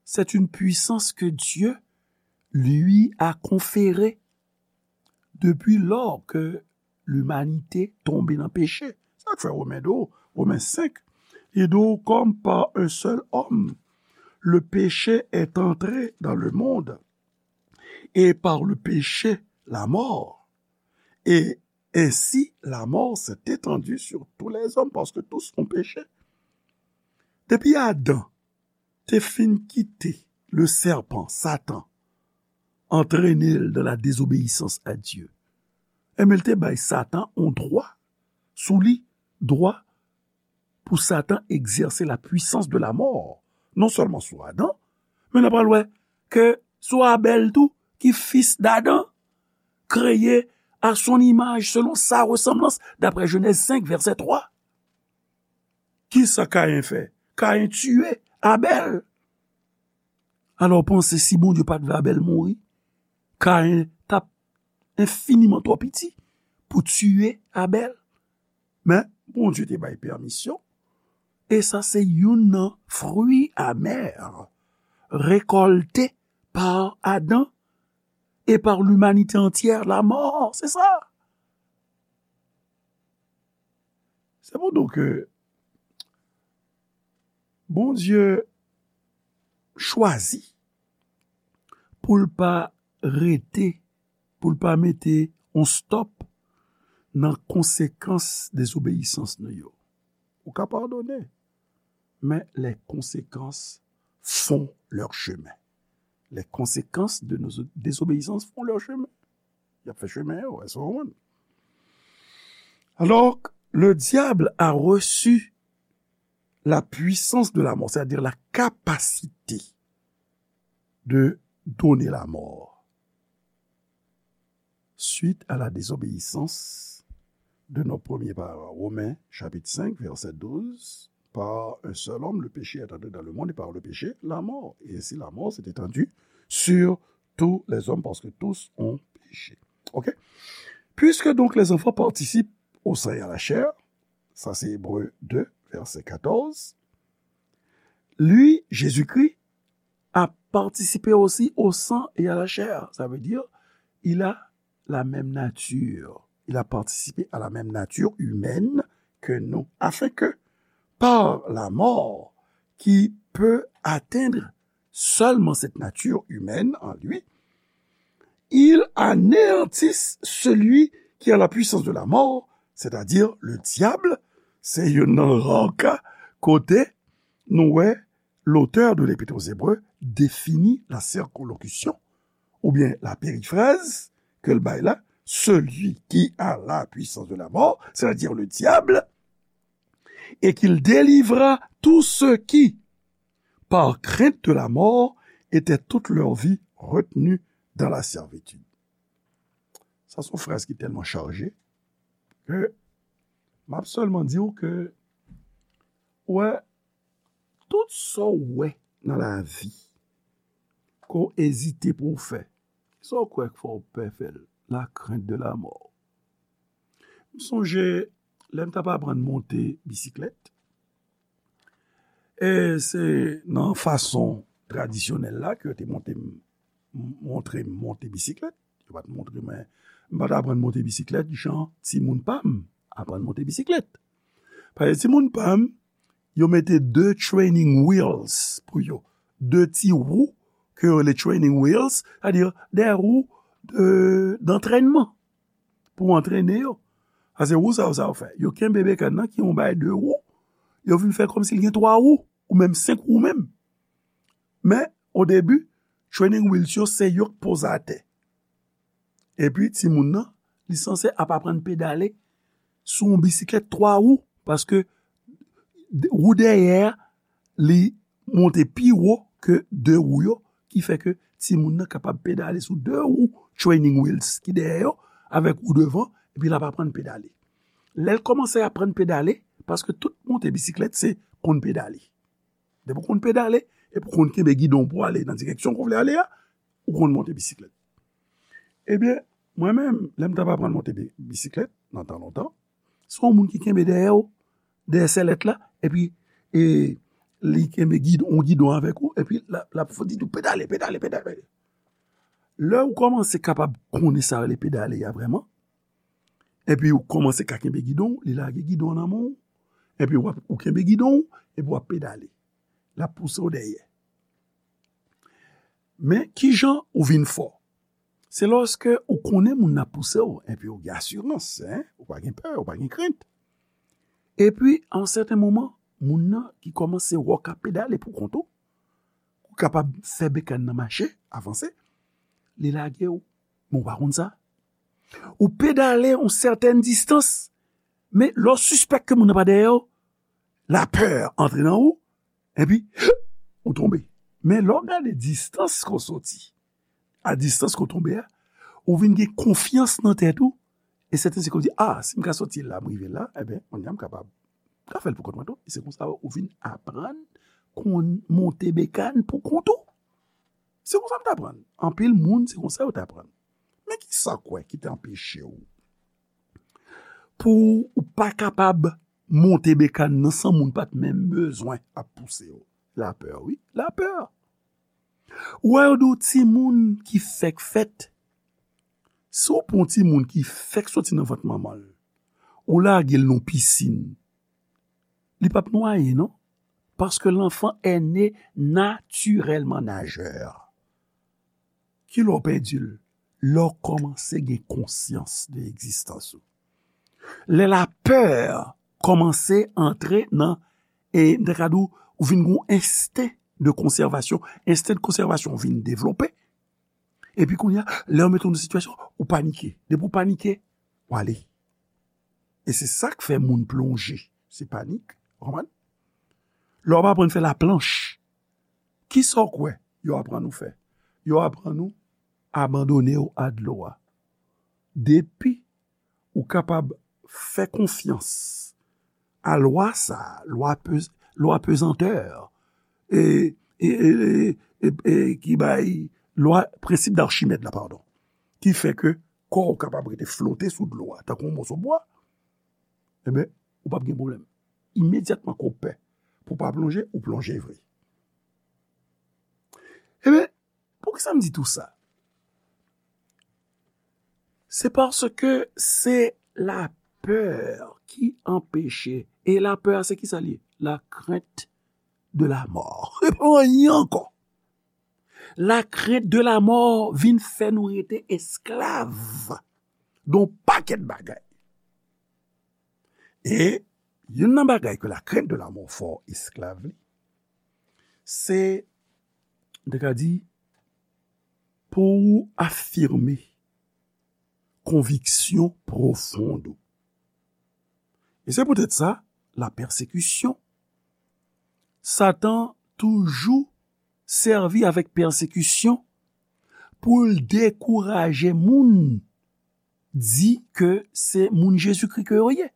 c'est une puissance que Dieu lui a conférée depuis lors que l'humanité tombée dans le péché. Sa k fè Women di w, Women senk, li di w, comme par un seul homme, le péché est entré dans le monde, et par le péché, la mort. Et ainsi, la mort s'est étendue sur tous les hommes, parce que tous ont péché. Depi Adan te fin kite le serpent, Satan, antrene l dans la désobéissance à Dieu, enben, l te bay Satan yon dwa sou li, dwa pou Satan egzèse la puissance de la mort, non sèlman sou Adan, men n ap pral wè ke sou Abèl tou, ki fis d'Adan, créé à son image, selon sa ressemblance, d'après Genèse cinq, verset trois. Kisa Kayen fè? Kayen tiye Abèl. Alò, w panse si Bondye pa t vle Abèl mouri, Kayen t ap enfiniman twò piti pou tiye Abèl? Men, Bondye te bay pèmisyon, e sa se youn nan fwi amè rekòlte par Adan et par l'humanité entière, la mort, se sa. Se pou di w ke Bondye chwazi pou l pa rete, pou l pa mete yon stòp nan konsekans dezobeyisans nou yo. Ou ka padone, men les conséquences font leur chemin. Les conséquences de nos désobéissances font leur chemin. Y ap fè chemen yo, èske w konprann? Alors, le diable a reçu la puissance de la mort, c'est-à-dire la capacité de donner la mort suite à la désobéissance de nos premiers parents. Romains chapitre cinq, verset douze, par un seul homme, le péché est entré dans le monde et par le péché, la mort. Et ainsi la mort s'est étendue sur tous les hommes parce que tous ont péché. OK? Puisque donc les enfants participent au sang et à la chair, ça c'est Hébreux deux, verset quatorze, lui, Jésus-Christ, a participé aussi au sang et à la chair. Ça veut dire, il a la même nature. Il a participé à la même nature humaine que nous, afin que, par la mort, qui peut atteindre seulement cette nature humaine en lui, il anéantisse celui qui a la puissance de la mort, c'est-à-dire le diable. Se youn nan ra ka kote nou wè l'auteur de l'Épître aux Hébreux définit la circonlocution, oubyen la périphrase ke l bay la, celui qui a la puissance de la mort, c'est-à-dire le diable, et qu'il délivra tous ceux qui, par crainte de la mort, étaient toute leur vie retenus dans la servitude. Sa se yon fraz ki tèlman chaje ke m ap sèlman di w ke, wè, tout sa w wè nan lavi ke w ezite pou w fè, sa w kwè k fè w pè fè l, la crainte de la mort. M sonje lè m t ap aprann monte bisiklèt, e se nan fason tradisyonèl la ke yo te monte m, montre m monte bisiklèt. Yo pa t montre mwen, m pa t aprann monte bisiklèt jan timoun pa m aprann monte bisiklèt. Paske timoun pa m, yo mete de training wheels pou yo. De ti wou ke yo rele training wheels, sètadi de wou de, d'antrènman pou antrene yo. Paske wou sa yo, sa yo fè? Yo kenbe bekàn nan ki yon bagay de wou, yo vin fè kòmsi l gen twa wou, ou menm senk wou menm. Men, o debi, training wheels yo se yo k poze atè. Epi, timoun nan, li sanse ap aprann pedale sou yon bisiklèt twa wou, paske de, wou dèyè a, li monte pi wo ke de wou yo, ki fè ke timoun nan kapab pedale sou de wou training wheels ki dèyè yo, avèk wou devan, epi l ap aprann pedale. Lè l kòmanse aprann pedale, paske tout monte bisiklèt se konn pedale. Depi w konn pedale, epi w konn kenbe gidon pou w ale nan direksyon ke w vle ale a, ou konn monte bisiklèt. Ebyen, Mwen menm, lè m t ap aprann monte bi- bisiklèt, nan tan lontan, se yon moun ki kenbe dèyè w, dèyè sèlèt la, epi e, li kenbe gidon, yon gidon avèk ou, epi l ap, l ap di tou, pedale, pedale, pedale. Lè ou kòmanse kapab konnen sa rele pedale a vrèman, epi ou kòmanse ka kenbe gidon, li lage gidon nan men w, epi w ap, ou kenbe gidon, epi w ap pedale. L ap pouse w dèyè. Men, kijan ou vin fò? Se lòske ou konnen moun nan ap pouse w, epi ou gen asirans, en, ou pa gen pè, ou pa gen krent. Epi, a yon sèten moman, moun nan ki kòmanse wè w ka pedale pou kont ou, ou kapab fè bekàn nan mache, avanse, li lage w. Men ou pa konn sa. Ou pedale yon sètèn distans, men lè w sispèk ke moun nan pa dèyè w, lapè antre nan ou, epi ou tonbe. Men lè w gade distans ke w soti, a distans ke w tonbe a, ou vin gen konfyans nan tèt ou, e sèten se ke w di, a, si m ka soti la, m rive la, ebyen, kounye a m kapab, m ka fè l pou kont mwen tou. E se konsa ou vin aprann konn monte bekàn pou kont ou. Se konsa m t aprann. Anpil moun, se konsa yo t aprann. Men kisa w kwè ki te anpeche w pou ou pa kapab monte bekàn nan san moun pa t menm bezwen ap pouse w? Lapè, wi, lapè. Ou wè yo di w timoun ki fèk fèt, si w pran yon timoun ki fèk soti nan vant manman l, ou lage l nan pisin, li p ap nwaye, non. Parce que l'enfant est né naturellement nageur. Kilè w pèdi l? Lè w kòmanse gen konsyans de egzistans ou. Lè lapè kòmanse antre nan, e, m ta ka di w, ou vin gen yon ensten de konsèvasyon. Ensten de konsèvasyon vin devlope. Epi kounye a, lè yo mete w nan sitiyasyon, ou panike. Depi w panike, w ale. E se sa k fè moun plonje. Se panik, w konprann? Lè w ap aprann fè laplanch, kisa w kwè yo aprann ou fè? Yo aprann ou abandone w a dlo a. Depi ou kapab fè konfyans a lwa sa a, lwa pe-, lwa pezantè, e, e, e, e, e, e ki bay lwa, prensip d'Archimède la, padon, ki fè ke kò w kapab rete flote sou dlo a, tankou yon moso bwa, ebyen, ou p ap gen pwoblèm. Imedyatman ke w pè pou w pa plonje, ou plonje vre. Ebyen, poukisa m di tou sa? Se paske se lapè ki anpeche. E lapè a, se kisa li ye? La crainte de la mort. E pa anyen ankò. La crainte de la mort vin fè nou rete esklav de yon pakèt bagay. E youn nan bagay ke la crainte de la mort fè w esklav li, se, m te ka di, pou w afime konviksyon pwofon w. E se poutèt sa, la pèsekisyon. Satan toujou sèvi avèk pèsekisyon pou l dekouraje moun di ke se moun Jezikri ke yo ye.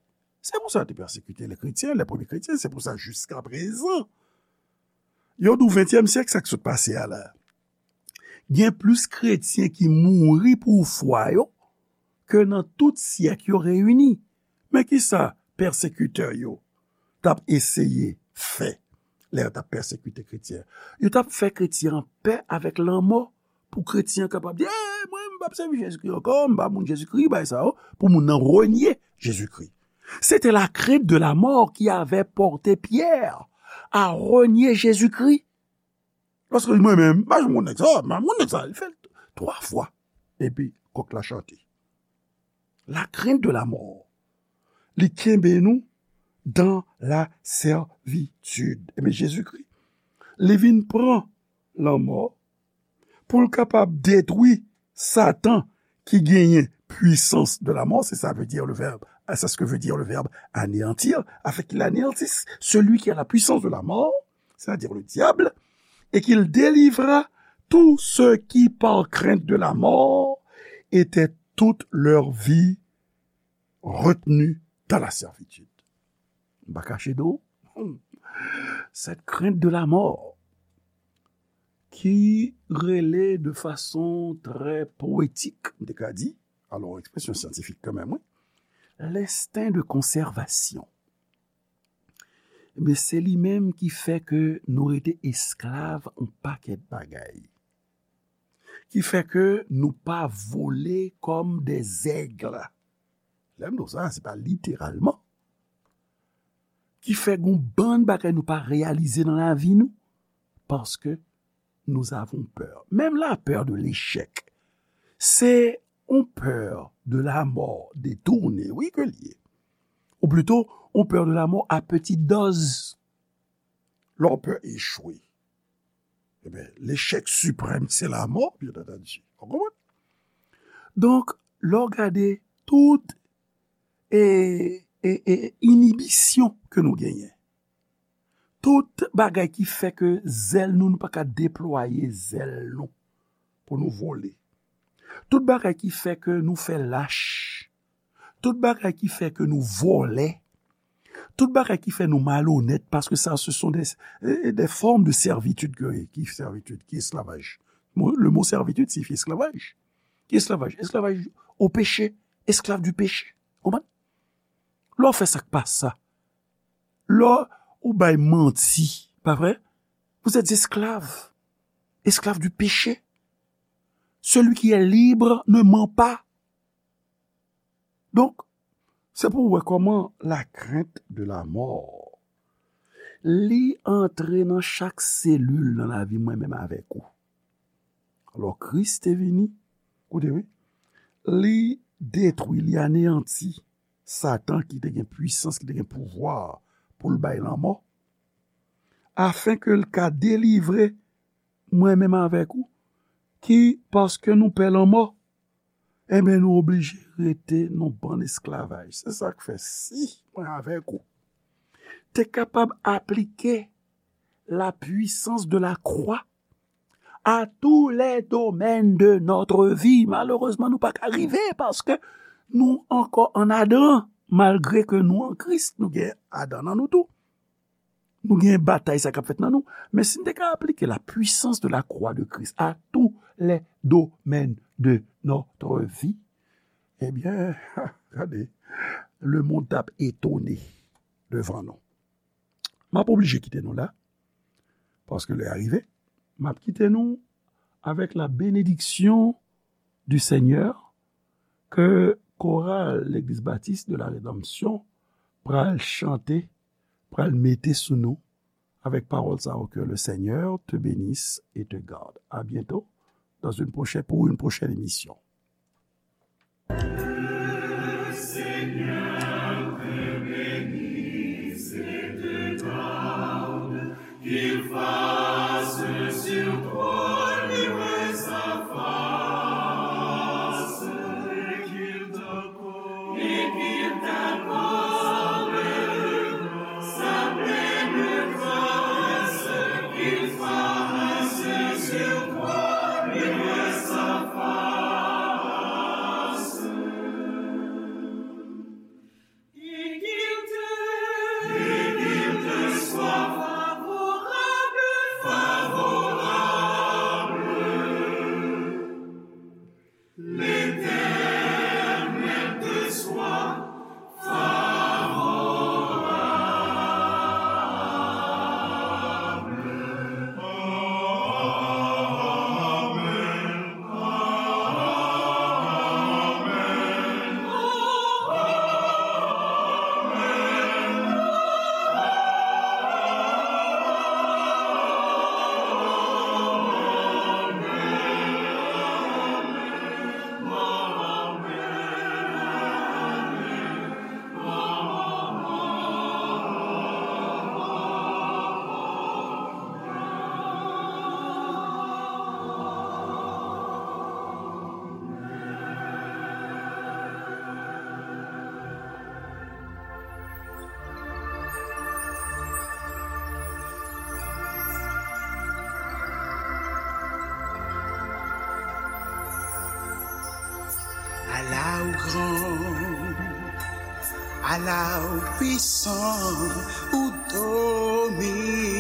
Se pou sa yo te pèsekite lè kretyen, lè premye kretyen, se pou sa jiska prezan. Yo di w ventyèm syèk, sa k sot pase a la. Gen plis kretyen ki mouri pou fwa yo ke nan tout syèk yo reyini. Men kisa pèsekitè yo t ap eseye fè lè yo t ap pèsekite kretyen? Yo t ap fè kretyen an pè avèk lanmò pou kretyen an kapab di, "Ey, mwen, m p ap sèvi Jezikri ankò, m pa moun Jezikri, bay sa yo," pou moun nan renye Jezikri. C'était la crainte de la mort qui avait porté Pierre à renier Jésus-Christ. Paske mwen menm, m pa janm konn nèg sa, m pa konn nèg sa. Li fè l twa fwa. Epi, kòk la chante. La crainte de la mort. Li kenbe nou dans la servitude. Ebyen, Jezikri, li vin pran lanmò pou l kapab detwi Satan ki genyen puissance de la mort, c'est ça veut dire le verbe, c'est ce que veut dire le verbe anéantir, afin qu'il anéantisse celui qui a la puissance de la mort, c'est-à-dire le diable, et qu'il délivra tous ceux qui, par crainte de la mort, étaient toute leur vie retenus dans la servitude. M pa kache do, cette crainte de la mort, ki rele de fason trè powetik, m te ka di, Alò, ekspresyon syantifik kanmenm, wi. L'instinct de conservation. Men se li menm ki fè ke nou rete esklav yon pakèt bagay. Ki fè ke nou pa vole kòm des aigles. Lè m di w sa, se pa literalman. Ki fè gon bann bagay nou pa reyalize nan lavi nou. Paske nous avons peur. Même la peur de l'échec, c'est une peur de la mort détournée, wi, ke l ye. Ou plito, une peur de la mort à petite dose. Lè w pè echwe. Ebyen, lechèk siprèm, se lamò, byen antandi. Ou konprann? Donk, lè w gade tout e, e, e inibisyon ke nou genyen, tout bagay ki fè ke zèl nou, nou pa ka deplwaye zèl nou pou nou vole, tout bagay ki fè ke nou fè lach, tout bagay ki fè ke nou vòlè, tout bagay ki fè nou malonèt, paske sa, ce sont des, eh, des formes de servitude. Ke, ki servitude, ki esklavaj. Mo, le mot servitude signifie esclavage. Ki esklavaj? Esklavaj au péché, esclave du péché. Konprann? Lè w fè sa k pa sa, lè w bay manti, pa vre? Vous êtes esclaves, esclaves du péché. Celui qui est libre ne ment pas. Donk, se pou w wè kòman la crainte de la mort, li antre nan chak selil nan lavi mwen menm avèk ou. Alò, Kris te vini, koute wi, li detwi, li aneyanti Satan ki te gen pwisans, ki te gen pouvwa pou l bay lanmò, afin ke l ka delivre mwen menm avèk ou, ki, paske nou pè lanmò, ebyen, nou oblije rete nan bann esklavaj. Se sa k fè, si mwen avèk ou te kapab aplike la puissance de la croix à tous les domaines de notre vie, malerezman, nou pa ka rive, paske nou ankò an Adan, malgre ke nou an Kris, nou gen Adan nan nou tou. Nou gen batay sa k ap fèt nan nou. Men si n te ka aplike la puissance de la croix de Christ à tous les domaines de notre vie, ebyen, gade, le monde t ap etone devan nou. M ap oblije kite nou la, paske lè a rive. M ap kite nou avec la bénédiction du Seigneur ke koral Legliz Batis de la Redanmsyon pral chante, pral mete sou nou avec parole sa yo, que le Seigneur te bénisse et te garde. À bientôt dans une prochaine, pour une prochaine émission. Le Seigneur te bénisse et te garde, qu'il fasse sur toi luire sa face, et qu'il t'accorde L'Éternel te soit favorable. Amen. Ala ou gran, ala ou pwisan, ou domine.